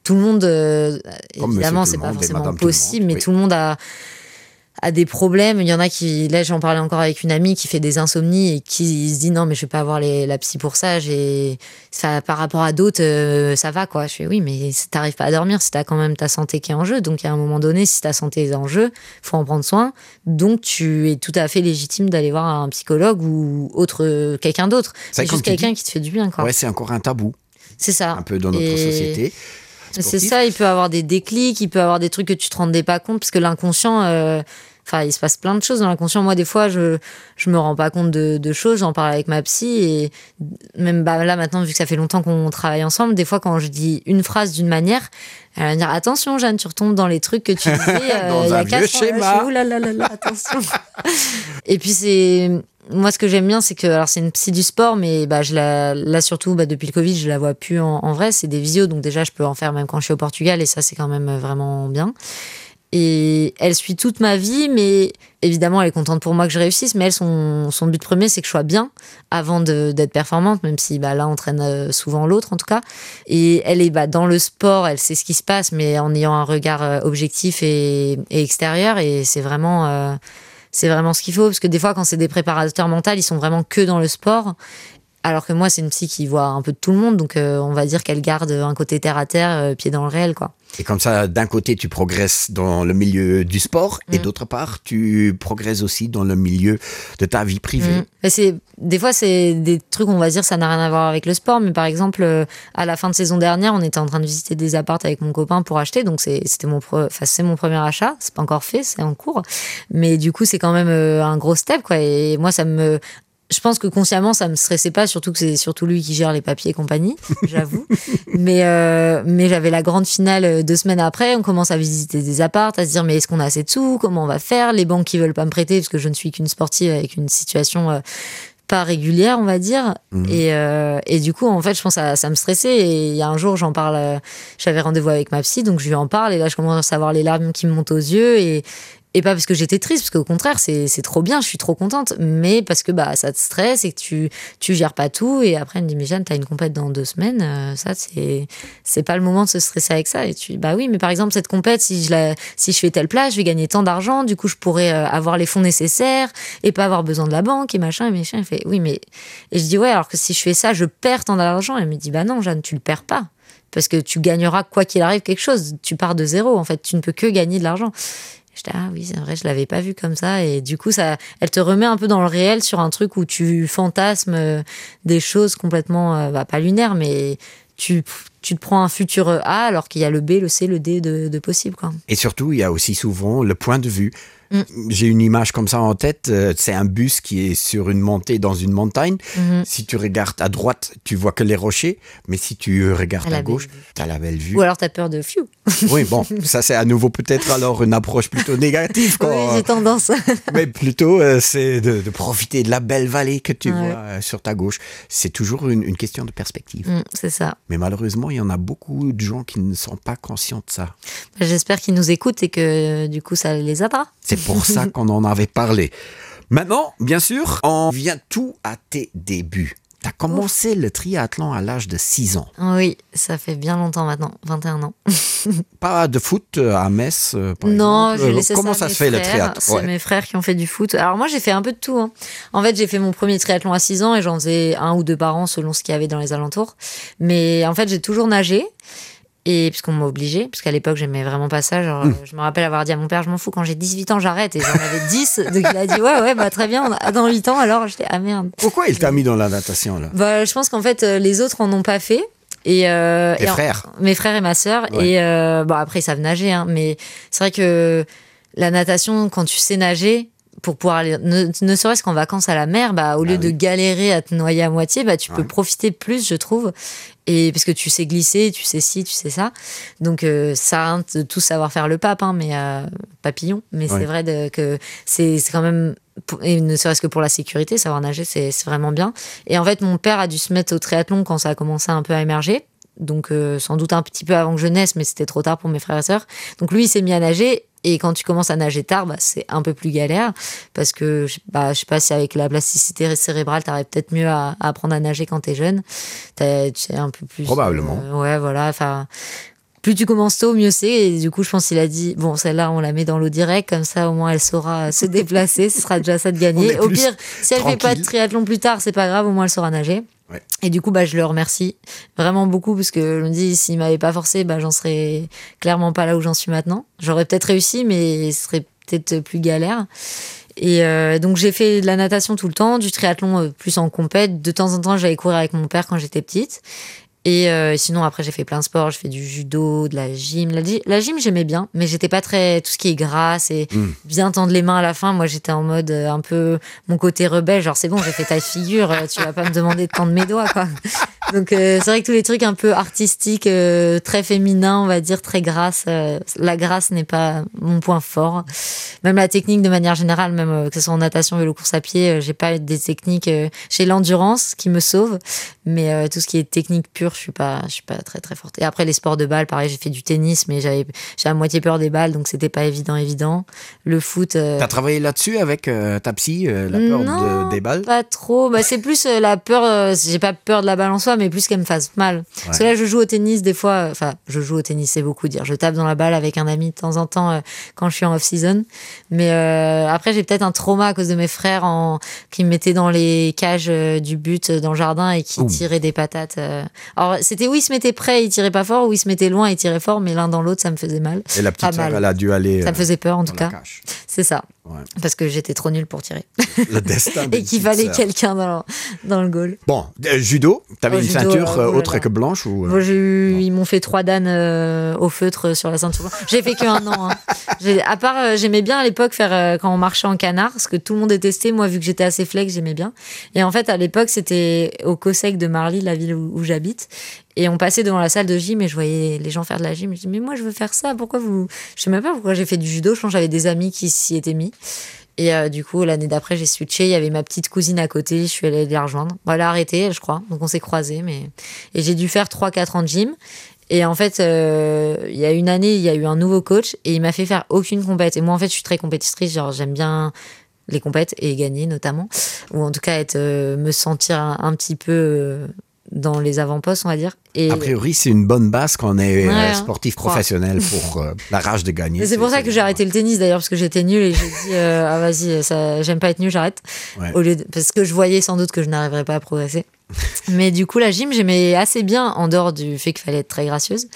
tout le monde, euh, Comme évidemment, monsieur c'est tout le pas monde et forcément madame tout le possible, monde, mais oui. tout le monde a a des problèmes. Il y en a qui, là, j'en parlais encore avec une amie qui fait des insomnies et qui se dit non, mais je vais pas avoir les, la psy pour ça. J'ai, ça, par rapport à d'autres, euh, ça va, quoi. Je fais oui, mais si t'arrives pas à dormir, si t'as quand même ta santé qui est en jeu. Donc, à un moment donné, si ta santé est en jeu, faut en prendre soin. Donc, tu es tout à fait légitime d'aller voir un psychologue ou autre, quelqu'un d'autre. C'est C'est comme juste tu dis. quelqu'un qui te fait du bien, quoi. Ouais, c'est encore un tabou, C'est ça. un peu dans notre Et- société. C'est sportive. ça, il peut avoir des déclics, il peut avoir des trucs que tu te rendais pas compte, parce que l'inconscient, euh, enfin, il se passe plein de choses dans l'inconscient. Moi, des fois, je, je me rends pas compte de, de choses, j'en parle avec ma psy, et même bah, là, maintenant, vu que ça fait longtemps qu'on travaille ensemble, des fois, quand je dis une phrase d'une manière, elle va me dire Attention, Jeanne, tu retombes dans les trucs que tu disais euh, Dans il y un a vieux quatre ans. Là, je schéma. fais, Ouh là là là là, attention. Et puis c'est moi ce que j'aime bien c'est que alors c'est une psy du sport mais bah je la là surtout bah, depuis le Covid je la vois plus en, en vrai c'est des visios donc déjà je peux en faire même quand je suis au Portugal et ça c'est quand même euh, vraiment bien. Et elle suit toute ma vie, mais évidemment, elle est contente pour moi que je réussisse. Mais elle, son, son but premier, c'est que je sois bien avant d'être performante, même si bah, l'un entraîne euh, souvent l'autre, en tout cas. Et elle est bah, dans le sport, elle sait ce qui se passe, mais en ayant un regard euh, objectif et, et extérieur. Et c'est vraiment. Euh, c'est vraiment ce qu'il faut parce que des fois quand c'est des préparateurs mentaux ils sont vraiment que dans le sport alors que moi c'est une psy qui voit un peu de tout le monde donc euh, on va dire qu'elle garde un côté terre à terre euh, pied dans le réel quoi et comme ça d'un côté tu progresses dans le milieu du sport mmh. et d'autre part tu progresses aussi dans le milieu de ta vie privée mmh. c'est des fois c'est des trucs on va dire ça n'a rien à voir avec le sport mais par exemple euh, à la fin de saison dernière on était en train de visiter des apparts avec mon copain pour acheter donc c'était mon enfin c'est mon premier achat c'est pas encore fait c'est en cours mais du coup c'est quand même euh, un gros step quoi et moi ça me je pense que consciemment ça me stressait pas surtout que c'est surtout lui qui gère les papiers et compagnie j'avoue mais euh, mais j'avais la grande finale euh, deux semaines après on commence à visiter des apparts à se dire mais est-ce qu'on a assez de sous comment on va faire les banques qui veulent pas me prêter parce que je ne suis qu'une sportive avec une situation euh, pas régulière on va dire mmh. et, euh, et du coup en fait je pense à ça me stressait et il y a un jour j'en parle euh, j'avais rendez-vous avec ma psy donc je lui en parle et là je commence à avoir les larmes qui me montent aux yeux et et pas parce que j'étais triste parce qu'au contraire c'est trop bien je suis trop contente mais parce que bah ça te stresse et que tu tu gères pas tout et après elle me dit mais Jeanne t'as une compète dans deux semaines euh, ça c'est c'est pas le moment de se stresser avec ça et tu bah oui mais par exemple cette compète si je la si je fais telle place je vais gagner tant d'argent du coup je pourrais euh, avoir les fonds nécessaires et pas avoir besoin de la banque et machin et machin elle fait oui mais et je dis ouais alors que si je fais ça je perds tant d'argent elle me dit bah non Jeanne tu le perds pas parce que tu gagneras quoi qu'il arrive quelque chose tu pars de zéro en fait tu ne peux que gagner de l'argent J'étais ah oui c'est vrai je l'avais pas vu comme ça et du coup ça elle te remet un peu dans le réel sur un truc où tu fantasmes euh, des choses complètement euh, bah, pas lunaires mais tu tu te prends un futur A alors qu'il y a le B le C le D de, de possible quoi. Et surtout il y a aussi souvent le point de vue Mm. J'ai une image comme ça en tête, euh, c'est un bus qui est sur une montée dans une montagne. Mm -hmm. Si tu regardes à droite, tu vois que les rochers, mais si tu regardes à gauche, tu as la belle vue. Ou alors tu as peur de few. Oui, bon, ça c'est à nouveau peut-être alors une approche plutôt négative quand... Oui, j'ai tendance. mais plutôt euh, c'est de, de profiter de la belle vallée que tu ouais. vois euh, sur ta gauche. C'est toujours une, une question de perspective. Mm, c'est ça. Mais malheureusement, il y en a beaucoup de gens qui ne sont pas conscients de ça. J'espère qu'ils nous écoutent et que du coup ça les aidera. C'est pour ça qu'on en avait parlé. Maintenant, bien sûr, on vient tout à tes débuts. Tu as commencé Ouf. le triathlon à l'âge de 6 ans. Oui, ça fait bien longtemps maintenant, 21 ans. Pas de foot euh, à Metz euh, par Non, exemple. Euh, Comment ça, ça se fait frères. le triathlon C'est ouais. mes frères qui ont fait du foot. Alors moi, j'ai fait un peu de tout. Hein. En fait, j'ai fait mon premier triathlon à 6 ans et j'en faisais un ou deux par an selon ce qu'il y avait dans les alentours. Mais en fait, j'ai toujours nagé et puisqu'on m'a obligé parce qu'à l'époque j'aimais vraiment pas ça genre mmh. je me rappelle avoir dit à mon père je m'en fous quand j'ai 18 ans j'arrête et j'en avais 10 donc il a dit ouais ouais bah très bien on a, dans 8 ans alors j'étais ah merde pourquoi il t'a mis dans la natation là bah je pense qu'en fait euh, les autres en ont pas fait et, euh, et frères en, mes frères et ma sœur ouais. et euh, bon après ils savent nager hein, mais c'est vrai que la natation quand tu sais nager pour pouvoir aller ne, ne serait-ce qu'en vacances à la mer bah au lieu ah oui. de galérer à te noyer à moitié bah tu ouais. peux profiter plus je trouve et parce que tu sais glisser tu sais si tu sais ça donc euh, ça de tout savoir faire le pape hein, mais euh, papillon mais ouais. c'est vrai de, que c'est quand même et ne serait-ce que pour la sécurité savoir nager c'est vraiment bien et en fait mon père a dû se mettre au triathlon quand ça a commencé un peu à émerger donc euh, sans doute un petit peu avant que je naisse mais c'était trop tard pour mes frères et sœurs donc lui il s'est mis à nager et quand tu commences à nager tard bah, c'est un peu plus galère parce que bah, je sais pas si avec la plasticité cérébrale t'arrives peut-être mieux à, à apprendre à nager quand t'es jeune tu sais un peu plus probablement euh, ouais voilà enfin plus tu commences tôt mieux c'est et du coup je pense qu'il a dit bon celle-là on la met dans l'eau direct comme ça au moins elle saura se déplacer ce sera déjà ça de gagner au pire si elle fait pas de triathlon plus tard c'est pas grave au moins elle saura nager ouais. et du coup bah je le remercie vraiment beaucoup parce que je me dis s'il m'avait pas forcé bah j'en serais clairement pas là où j'en suis maintenant j'aurais peut-être réussi mais ce serait peut-être plus galère et euh, donc j'ai fait de la natation tout le temps du triathlon euh, plus en compète de temps en temps j'allais courir avec mon père quand j'étais petite et euh, sinon après j'ai fait plein de sports je fais du judo de la gym la, la gym j'aimais bien mais j'étais pas très tout ce qui est grasse et mmh. bien tendre les mains à la fin moi j'étais en mode euh, un peu mon côté rebelle genre c'est bon j'ai fait ta figure euh, tu vas pas me demander de tendre mes doigts quoi Donc euh, c'est vrai que tous les trucs un peu artistiques, euh, très féminins, on va dire très grâce, euh, la grâce n'est pas mon point fort. Même la technique de manière générale, même euh, que ce soit en natation, vélo, course à pied, euh, j'ai pas des techniques, euh, j'ai l'endurance qui me sauve, mais euh, tout ce qui est technique pure, je suis pas, je suis pas très très forte. Et après les sports de balle, pareil, j'ai fait du tennis, mais j'avais j'ai à moitié peur des balles, donc c'était pas évident évident. Le foot. Euh... T'as travaillé là-dessus avec euh, ta psy, euh, la peur non, de, des balles Pas trop. Bah, c'est plus euh, la peur, euh, j'ai pas peur de la balle en soi, mais plus qu'elle me fasse mal. Ouais. Parce que là, je joue au tennis des fois, euh, enfin, je joue au tennis, c'est beaucoup dire. Je tape dans la balle avec un ami de temps en temps euh, quand je suis en off-season. Mais euh, après, j'ai peut-être un trauma à cause de mes frères en... qui me mettaient dans les cages euh, du but euh, dans le jardin et qui Ouh. tiraient des patates. Euh. Alors, c'était où ils se mettaient près, ils tiraient pas fort, ou ils se mettaient loin, ils tiraient fort, mais l'un dans l'autre, ça me faisait mal. Et la petite sœur, elle a dû aller. Ça me faisait peur en tout cas. C'est ça. Ouais. Parce que j'étais trop nulle pour tirer. Le destin et qu'il fallait quelqu'un dans, dans le goal. Bon, euh, judo, t'avais oh, une judo, ceinture euh, autre que blanche ou euh... Bon, eu, ils m'ont fait trois danes euh, au feutre sur la ceinture. J'ai fait qu'un an. Hein. À part, euh, j'aimais bien à l'époque faire euh, quand on marchait en canard, ce que tout le monde détestait. Moi, vu que j'étais assez flex, j'aimais bien. Et en fait, à l'époque, c'était au Cosec de Marly, la ville où, où j'habite. Et on passait devant la salle de gym et je voyais les gens faire de la gym. Je dis mais moi je veux faire ça, pourquoi vous Je sais même pas pourquoi j'ai fait du judo, je pense j'avais des amis qui s'y étaient mis. Et euh, du coup, l'année d'après, j'ai switché, il y avait ma petite cousine à côté, je suis allée la rejoindre. Bon, elle a arrêté, je crois. Donc on s'est croisés mais et j'ai dû faire 3 4 ans de gym et en fait, euh, il y a une année, il y a eu un nouveau coach et il m'a fait faire aucune compète. Et moi en fait, je suis très compétitrice, genre j'aime bien les compètes et gagner notamment ou en tout cas être euh, me sentir un, un petit peu euh, dans les avant-postes on va dire et a priori c'est une bonne base qu'on est euh, ouais, sportif professionnel pour euh, la rage de gagner c'est pour ça que j'ai arrêté le tennis d'ailleurs parce que j'étais nul et j'ai dit euh, ah vas-y ça j'aime pas être nul j'arrête ouais. au lieu de, parce que je voyais sans doute que je n'arriverais pas à progresser mais du coup la gym j'aimais assez bien en dehors du fait qu'il fallait être très gracieuse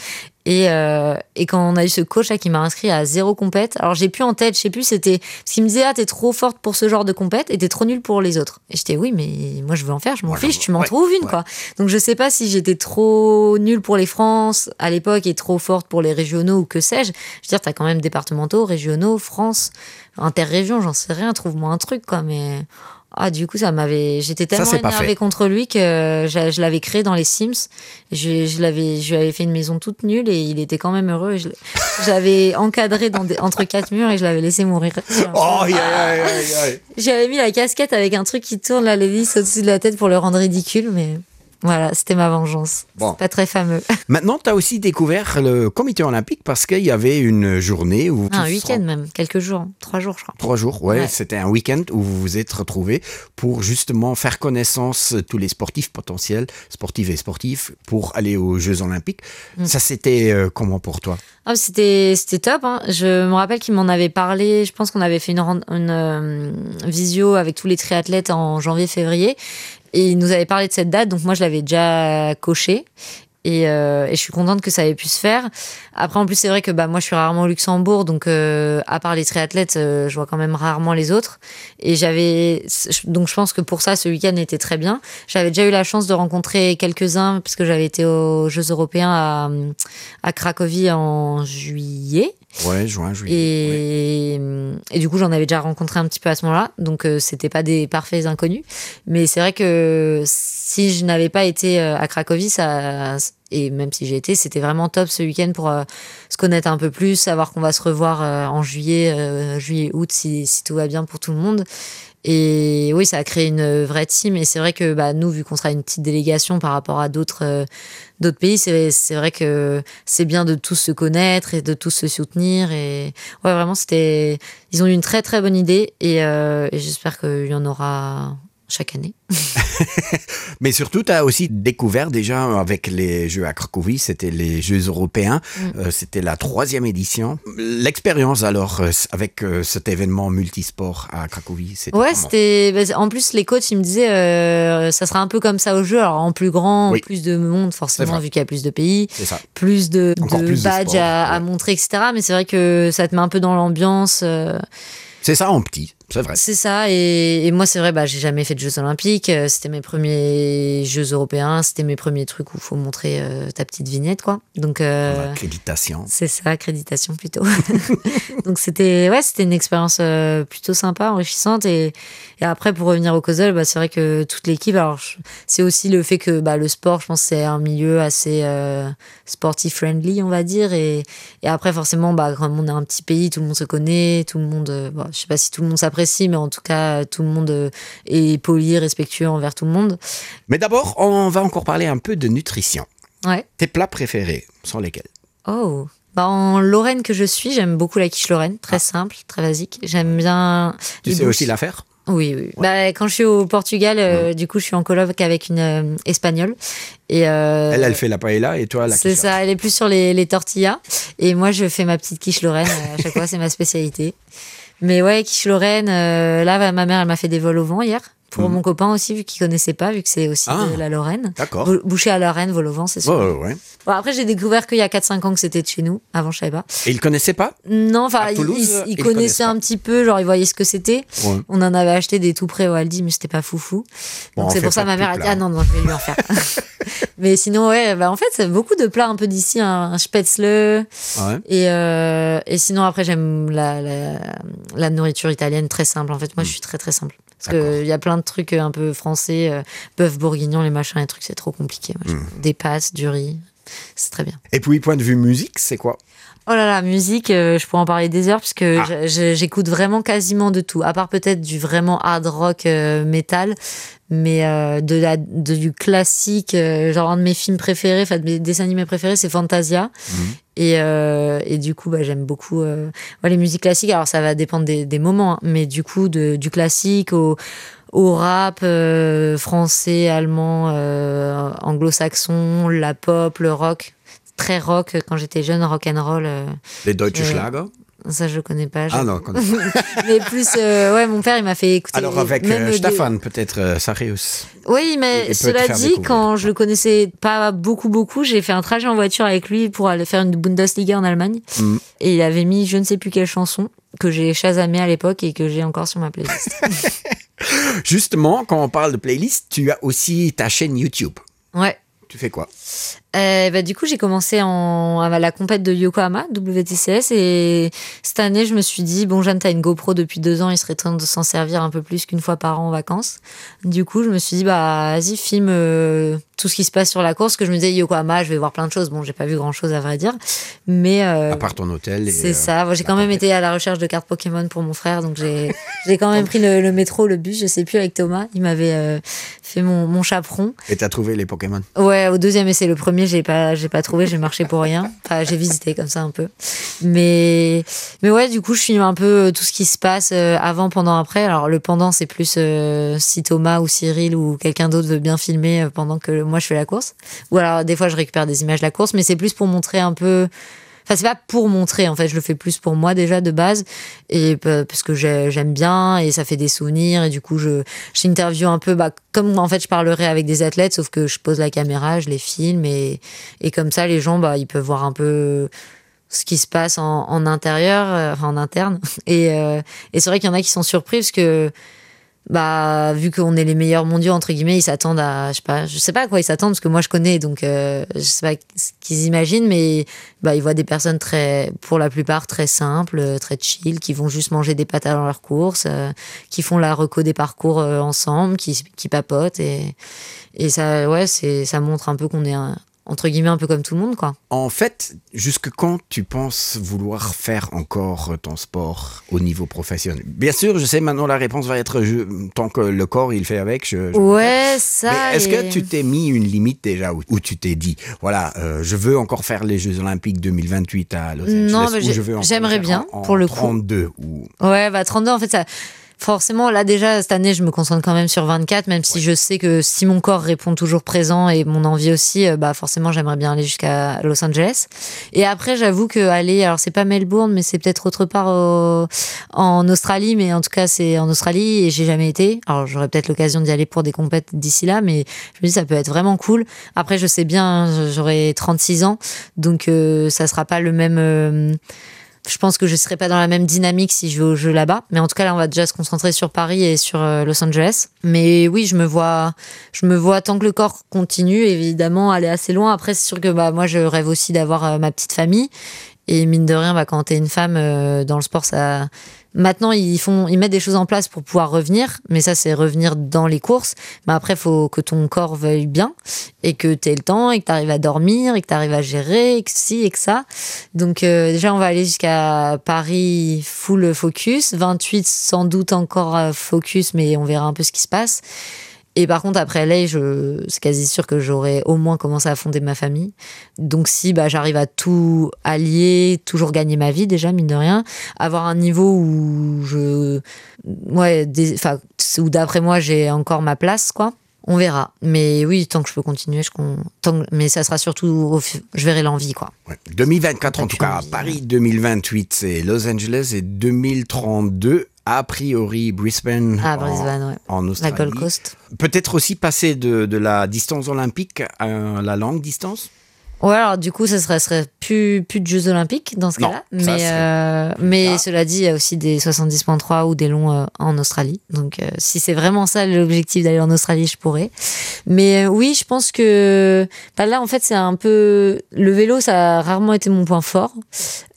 et, euh, et quand on a eu ce coach là qui m'a inscrit à zéro compète alors j'ai plus en tête je sais plus c'était ce qu'il me disait ah t'es trop forte pour ce genre de compète et t'es trop nul pour les autres et j'étais oui mais moi je veux en faire je m'en fiche tu m'en ouais, trouves une ouais. quoi donc je sais pas si j'étais trop nul pour les France à l'époque et trop forte pour les régionaux ou que sais-je je veux dire t'as quand même départementaux régionaux France interrégion j'en sais rien trouve-moi un truc quoi mais Ah, du coup, ça m'avait. J'étais tellement énervée contre lui que je, je l'avais créé dans les Sims. Je, je l'avais, je lui avais fait une maison toute nulle et il était quand même heureux. Je, j'avais encadré dans des, entre quatre murs et je l'avais laissé mourir. Oh, aïe, aïe, aïe, aïe. J'avais mis la casquette avec un truc qui tourne la l'hélice au-dessus de la tête pour le rendre ridicule, mais. Voilà, c'était ma vengeance. Bon. Pas très fameux. Maintenant, tu as aussi découvert le comité olympique parce qu'il y avait une journée où un week-end même, quelques jours, trois jours je crois. Trois jours, ouais, ouais. C'était un week-end où vous vous êtes retrouvés pour justement faire connaissance tous les sportifs potentiels, sportives et sportifs pour aller aux Jeux olympiques. Mm. Ça c'était euh, comment pour toi ah, C'était c'était top. Hein. Je me rappelle qu'il m'en avait parlé. Je pense qu'on avait fait une, une euh, visio avec tous les triathlètes en janvier-février et il nous avait parlé de cette date donc moi je l'avais déjà coché et, euh, et je suis contente que ça ait pu se faire après en plus c'est vrai que bah moi je suis rarement au Luxembourg donc euh, à part les triathlètes euh, je vois quand même rarement les autres et j'avais donc je pense que pour ça ce week-end était très bien j'avais déjà eu la chance de rencontrer quelques-uns parce que j'avais été aux jeux européens à, à Cracovie en juillet ouais, juin, juillet, et, ouais. et du coup j'en avais déjà rencontré un petit peu à ce moment là donc euh, c'était pas des parfaits inconnus mais c'est vrai que si je n'avais pas été euh, à Cracovie ça et même si j'ai été c'était vraiment top ce week-end pour euh, se connaître un peu plus savoir qu'on va se revoir euh, en juillet euh, juillet août si, si tout va bien pour tout le monde et oui ça a créé une vraie team et c'est vrai que bah, nous vu qu'on sera une petite délégation par rapport à d'autres euh, d'autres pays c'est vrai que c'est bien de tous se connaître et de tous se soutenir et ouais vraiment c'était ils ont eu une très très bonne idée et, euh, et j'espère qu'il y en aura chaque année. Mais surtout, tu as aussi découvert déjà avec les Jeux à Cracovie, c'était les Jeux européens, mm. euh, c'était la troisième édition. L'expérience alors euh, avec euh, cet événement multisport à Cracovie, c'était Ouais, c'était en plus les coachs ils me disaient euh, ça sera un peu comme ça au jeu, alors en plus grand, oui. plus de monde forcément vu qu'il y a plus de pays, plus de, de plus badges de sport, à, ouais. à montrer etc. Mais c'est vrai que ça te met un peu dans l'ambiance. Euh... C'est ça en petit. C'est vrai. C'est ça. Et, et moi, c'est vrai, bah, j'ai jamais fait de Jeux Olympiques. Euh, c'était mes premiers Jeux européens. C'était mes premiers trucs où faut montrer euh, ta petite vignette, quoi. Donc, euh, accréditation. C'est ça, accréditation plutôt. Donc, c'était ouais, c'était une expérience euh, plutôt sympa, enrichissante. Et, et après, pour revenir au Cosel, bah, c'est vrai que toute l'équipe, alors c'est aussi le fait que bah, le sport, je pense, c'est un milieu assez euh, sportif friendly, on va dire. Et, et après, forcément, bah, comme on est un petit pays, tout le monde se connaît, tout le monde, euh, bah, je sais pas si tout le monde s'apprécie, mais en tout cas, tout le monde euh, est poli, respectueux envers tout le monde. Mais d'abord, on va encore parler un peu de nutrition. Ouais. Tes plats préférés sont lesquels Oh bah en Lorraine que je suis, j'aime beaucoup la quiche Lorraine, très ah. simple, très basique. J'aime bien. Tu sais aussi la faire Oui, oui. Ouais. Bah, quand je suis au Portugal, euh, mmh. du coup, je suis en colloque avec une euh, espagnole. Et euh, elle, elle fait la paella et toi la C'est ça, elle est plus sur les, les tortillas. Et moi, je fais ma petite quiche Lorraine. Euh, à chaque fois, c'est ma spécialité. Mais ouais, quiche Lorraine, euh, là, ma mère, elle m'a fait des vols au vent hier pour mmh. mon copain aussi vu qu'il connaissait pas vu que c'est aussi ah, de la Lorraine d'accord boucher à Lorraine vol au vent c'est ouais, ouais, ouais. Bon, après j'ai découvert qu'il y a 4 5 ans que c'était de chez nous avant je savais pas et il connaissait pas non enfin il, il, il connaissait un petit peu genre il voyait ce que c'était ouais. on en avait acheté des tout près au Aldi mais c'était pas foufou donc bon, c'est pour ça ma mère a dit ah non non je vais lui en faire mais sinon ouais bah en fait c'est beaucoup de plats un peu d'ici un, un spätzle ouais. et euh, et sinon après j'aime la, la la nourriture italienne très simple en fait moi mmh. je suis très très simple parce que il y a plein de trucs euh, un peu français euh, bœuf bourguignon les machins les trucs c'est trop compliqué moi, mmh. des passes du riz c'est très bien et puis point de vue musique c'est quoi oh là là musique euh, je pourrais en parler des heures parce que ah. j'écoute vraiment quasiment de tout à part peut-être du vraiment hard rock euh, métal mais euh, de la de, du classique euh, genre un de mes films préférés enfin de mes dessins animés préférés c'est fantasia mmh. et, euh, et du coup bah, j'aime beaucoup euh, ouais, les musiques classiques alors ça va dépendre des, des moments hein, mais du coup de, du classique au au rap euh, français allemand euh, anglo-saxon la pop le rock très rock quand j'étais jeune rock and roll euh, les deutsche euh, schlager ça je connais pas je... ah non connais pas. mais plus euh, ouais mon père il m'a fait écouter alors avec euh, Stefan des... peut-être euh, Sarius oui mais il, cela dit quand je le connaissais pas beaucoup beaucoup j'ai fait un trajet en voiture avec lui pour aller faire une Bundesliga en Allemagne mm. et il avait mis je ne sais plus quelle chanson que j'ai chasamé à l'époque et que j'ai encore sur ma playlist justement quand on parle de playlist tu as aussi ta chaîne YouTube ouais tu fais quoi euh, bah, du coup j'ai commencé en à la compète de Yokohama WTCS et cette année je me suis dit bon Jeanne t'as une GoPro depuis deux ans il serait temps de s'en servir un peu plus qu'une fois par an en vacances du coup je me suis dit bah vas-y filme euh, tout ce qui se passe sur la course que je me disais Yokohama je vais voir plein de choses bon j'ai pas vu grand chose à vrai dire mais euh, à part ton hôtel c'est euh, ça j'ai quand même été à la recherche de cartes Pokémon pour mon frère donc j'ai j'ai quand même pris le, le métro le bus je sais plus avec Thomas il m'avait euh, fait mon, mon chaperon et t'as trouvé les Pokémon ouais au deuxième essai le premier j'ai pas j'ai pas trouvé j'ai marché pour rien enfin j'ai visité comme ça un peu mais mais ouais du coup je filme un peu euh, tout ce qui se passe euh, avant pendant après alors le pendant c'est plus euh, si Thomas ou Cyril ou quelqu'un d'autre veut bien filmer euh, pendant que moi je fais la course ou alors des fois je récupère des images de la course mais c'est plus pour montrer un peu enfin c'est pas pour montrer en fait je le fais plus pour moi déjà de base et parce que j'aime bien et ça fait des souvenirs et du coup je j'interviewe un peu bah comme en fait je parlerai avec des athlètes sauf que je pose la caméra je les filme et et comme ça les gens bah ils peuvent voir un peu ce qui se passe en, en intérieur euh, enfin en interne et euh, et c'est vrai qu'il y en a qui sont surpris parce que bah vu qu'on est les meilleurs mondiaux entre guillemets ils s'attendent à je sais pas je sais pas à quoi ils s'attendent parce que moi je connais donc euh, je sais pas ce qu'ils imaginent mais bah ils voient des personnes très pour la plupart très simples très chill qui vont juste manger des pâtes avant leur course euh, qui font la reco des parcours euh, ensemble qui, qui papotent et et ça ouais c'est ça montre un peu qu'on est un entre guillemets un peu comme tout le monde quoi. En fait, jusque quand tu penses vouloir faire encore ton sport au niveau professionnel Bien sûr, je sais maintenant la réponse va être je, tant que le corps il fait avec je, je Ouais ça est-ce que tu t'es mis une limite déjà où, où tu t'es dit voilà euh, je veux encore faire les Jeux olympiques 2028 à Los Angeles j'aimerais bien en, en pour le 32 coup. ou Ouais bah 32 en fait ça forcément là déjà cette année je me concentre quand même sur 24 même si ouais. je sais que si mon corps répond toujours présent et mon envie aussi euh, bah forcément j'aimerais bien aller jusqu'à Los Angeles et après j'avoue que aller alors c'est pas Melbourne mais c'est peut-être autre part au, en Australie mais en tout cas c'est en Australie et j'ai jamais été alors j'aurais peut-être l'occasion d'y aller pour des compètes d'ici là mais je me dis ça peut être vraiment cool après je sais bien j'aurai 36 ans donc euh, ça sera pas le même euh, Je pense que je serai pas dans la même dynamique si je vais au jeu là-bas. Mais en tout cas, là, on va déjà se concentrer sur Paris et sur euh, Los Angeles. Mais oui, je me vois, je me vois tant que le corps continue, évidemment, aller assez loin. Après, c'est sûr que bah, moi, je rêve aussi d'avoir euh, ma petite famille. Et mine de rien, bah, quand t'es une femme euh, dans le sport, ça maintenant ils font ils mettent des choses en place pour pouvoir revenir mais ça c'est revenir dans les courses mais après faut que ton corps veuille bien et que tu aies le temps et que tu arrives à dormir et que tu arrives à gérer et que si et que ça donc euh, déjà on va aller jusqu'à Paris full focus 28 sans doute encore euh, focus mais on verra un peu ce qui se passe et par contre après LA je c'est quasi sûr que j'aurais au moins commencé à fonder ma famille donc si bah j'arrive à tout allier toujours gagner ma vie déjà mine de rien avoir un niveau où je ouais des, enfin où d'après moi j'ai encore ma place quoi on verra mais oui tant que je peux continuer je con tant que, mais ça sera surtout au, je verrai l'envie quoi ouais. 2024 en tout cas envie, Paris ouais. 2028 c'est Los Angeles et 2032 a priori Brisbane, ah, Brisbane en, ouais. en Australie. La Gold Coast. Peut-être aussi passer de, de la distance olympique à la longue distance Ouais, alors du coup ça serait, serait plus plus de Jeux olympiques dans ce non, cas là mais euh, mais cela dit il y a aussi des 70.3 ou des longs euh, en Australie donc euh, si c'est vraiment ça l'objectif d'aller en Australie je pourrais mais euh, oui je pense que bah, là en fait c'est un peu le vélo ça a rarement été mon point fort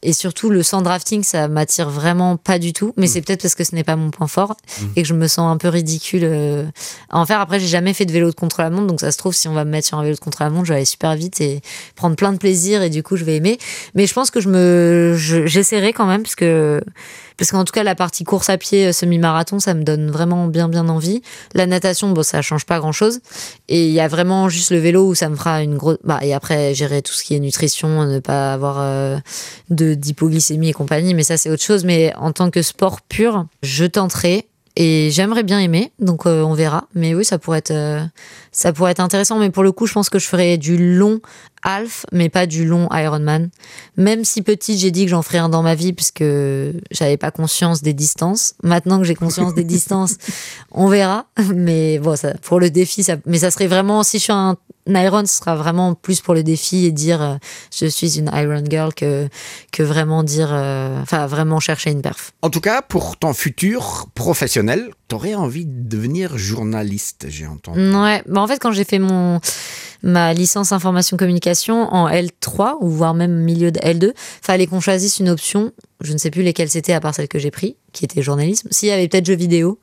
et surtout le sans drafting ça m'attire vraiment pas du tout mais mmh. c'est peut-être parce que ce n'est pas mon point fort mmh. et que je me sens un peu ridicule euh, à en faire après j'ai jamais fait de vélo de contre la montre donc ça se trouve si on va me mettre sur un vélo de contre la montre je vais aller super vite et prendre plein de plaisir et du coup je vais aimer mais je pense que je me j'essaierai je, quand même parce que parce qu'en tout cas la partie course à pied euh, semi-marathon ça me donne vraiment bien bien envie la natation bon ça change pas grand chose et il ya vraiment juste le vélo où ça me fera une grosse bah et après gérer tout ce qui est nutrition ne pas avoir euh, de d'hypoglycémie et compagnie mais ça c'est autre chose mais en tant que sport pur je tenterai et j'aimerais bien aimer donc euh, on verra mais oui ça pourrait être euh, ça pourrait être intéressant mais pour le coup je pense que je ferais du long half mais pas du long Ironman même si petite j'ai dit que j'en ferais un dans ma vie puisque j'avais pas conscience des distances maintenant que j'ai conscience des distances on verra mais bon ça pour le défi ça mais ça serait vraiment si je suis un Iron ce sera vraiment plus pour le défi et dire euh, je suis une Iron Girl que, que vraiment dire euh, enfin euh, vraiment chercher une perf. En tout cas pour ton futur professionnel, tu aurais envie de devenir journaliste, j'ai entendu. Ouais, bah en fait quand j'ai fait mon ma licence information communication en L3 ou voire même milieu de L2, fallait qu'on choisisse une option, je ne sais plus lesquelles c'était à part celle que j'ai pris qui était journalisme s'il y avait peut-être jeux vidéo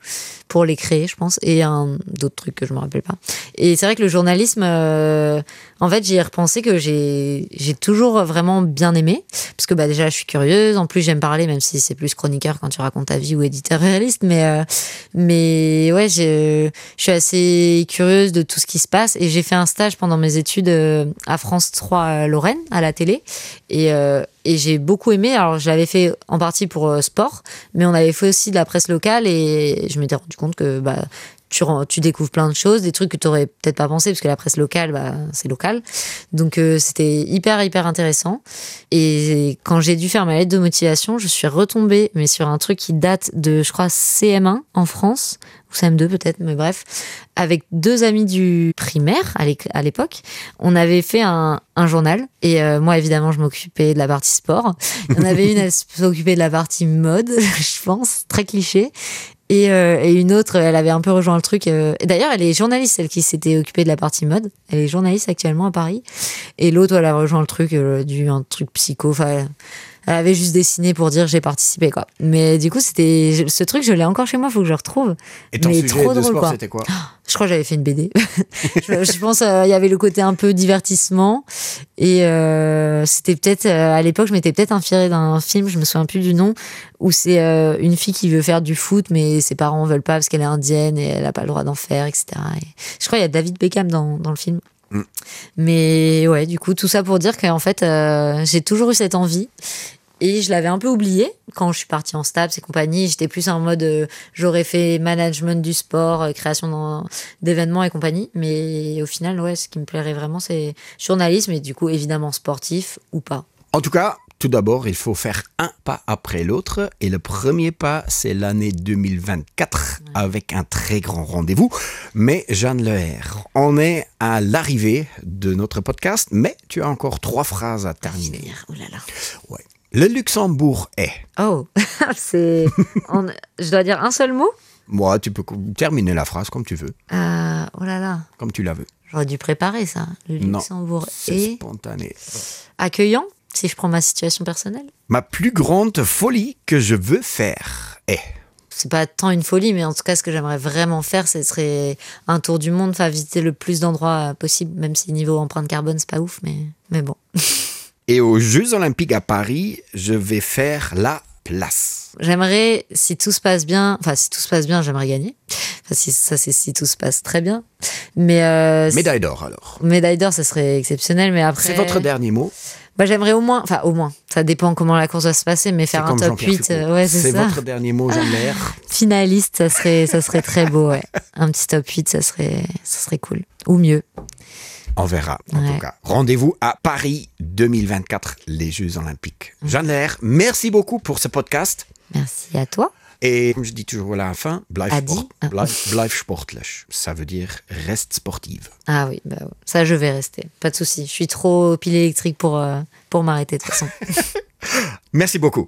pour les créer je pense et un d'autres trucs que je me rappelle pas et c'est vrai que le journalisme euh, en fait j'y ai repensé que j'ai j'ai toujours vraiment bien aimé parce que bah déjà je suis curieuse en plus j'aime parler même si c'est plus chroniqueur quand tu racontes ta vie ou éditeur réaliste mais euh, mais ouais je je suis assez curieuse de tout ce qui se passe et j'ai fait un stage pendant mes études euh, à France 3 euh, Lorraine à la télé et euh, et j'ai beaucoup aimé alors je l'avais fait en partie pour euh, sport mais on avait fait aussi de la presse locale et je m'étais rendu compte que bah tu, tu découvres plein de choses des trucs que tu aurais peut-être pas pensé parce que la presse locale bah, c'est local donc euh, c'était hyper hyper intéressant et quand j'ai dû faire ma lettre de motivation je suis retombée mais sur un truc qui date de je crois CM1 en France ou CM2 peut-être mais bref avec deux amis du primaire à l'époque on avait fait un, un journal et euh, moi évidemment je m'occupais de la partie sport il y en avait une elle s'occupait de la partie mode je pense très cliché et, euh, et une autre elle avait un peu rejoint le truc euh, et d'ailleurs elle est journaliste celle qui s'était occupée de la partie mode elle est journaliste actuellement à Paris et l'autre elle a rejoint le truc euh, du un truc psycho enfin elle avait juste dessiné pour dire j'ai participé quoi mais du coup c'était ce truc je l'ai encore chez moi faut que je retrouve et ton mais sujet trop de drôle sport, quoi c'était quoi je crois j'avais fait une BD je, je pense euh, il euh, y avait le côté un peu divertissement et euh, c'était peut-être euh, à l'époque je m'étais peut-être inspirée d'un film je me souviens plus du nom où c'est euh, une fille qui veut faire du foot mais ses parents veulent pas parce qu'elle est indienne et elle a pas le droit d'en faire etc et je crois il y a David Beckham dans, dans le film mm. mais ouais du coup tout ça pour dire qu'en fait euh, j'ai toujours eu cette envie et je l'avais un peu oublié quand je suis partie en stabs et compagnie j'étais plus en mode euh, j'aurais fait management du sport euh, création d'événements et compagnie mais au final ouais ce qui me plairait vraiment c'est journalisme et du coup évidemment sportif ou pas en tout cas tout d'abord il faut faire un pas après l'autre et le premier pas c'est l'année 2024 ouais. avec un très grand rendez-vous mais Jeanne Leher on est à l'arrivée de notre podcast mais tu as encore trois phrases à terminer oh là là. ouais. Le Luxembourg est. Oh, c'est. On... Je dois dire un seul mot Moi, tu peux terminer la phrase comme tu veux. Euh, oh là là. Comme tu la veux. J'aurais dû préparer ça. Le Luxembourg est. Spontané. Accueillant, si je prends ma situation personnelle. Ma plus grande folie que je veux faire est. C'est pas tant une folie, mais en tout cas, ce que j'aimerais vraiment faire, ce serait un tour du monde, enfin visiter le plus d'endroits possible, même si niveau empreinte carbone, c'est pas ouf, mais, mais bon. Et aux Jeux Olympiques à Paris, je vais faire la place. J'aimerais, si tout se passe bien, enfin si tout se passe bien, j'aimerais gagner. Enfin, si, ça c'est si tout se passe très bien. Mais euh, médaille d'or alors. Médaille d'or, ça serait exceptionnel, mais après. C'est votre dernier mot. Bah, j'aimerais au moins, enfin au moins, ça dépend comment la course va se passer, mais faire un top 8, euh, ouais, c'est votre dernier mot, Jean Lair. Finaliste, ça serait, ça serait très beau, ouais. Un petit top 8, ça serait, ça serait cool. Ou mieux. On verra, en ouais. tout cas. Rendez-vous à Paris 2024, les Jeux Olympiques. Mmh. Jeanne Lair, merci beaucoup pour ce podcast. Merci à toi. Et comme je dis toujours à la fin, blijf, sport, ah. blijf, blijf sportlich. Ça veut dire reste sportive. Ah oui, bah, ça je vais rester. Pas de souci. Je suis trop pile électrique pour, euh, pour m'arrêter de toute façon. Merci beaucoup.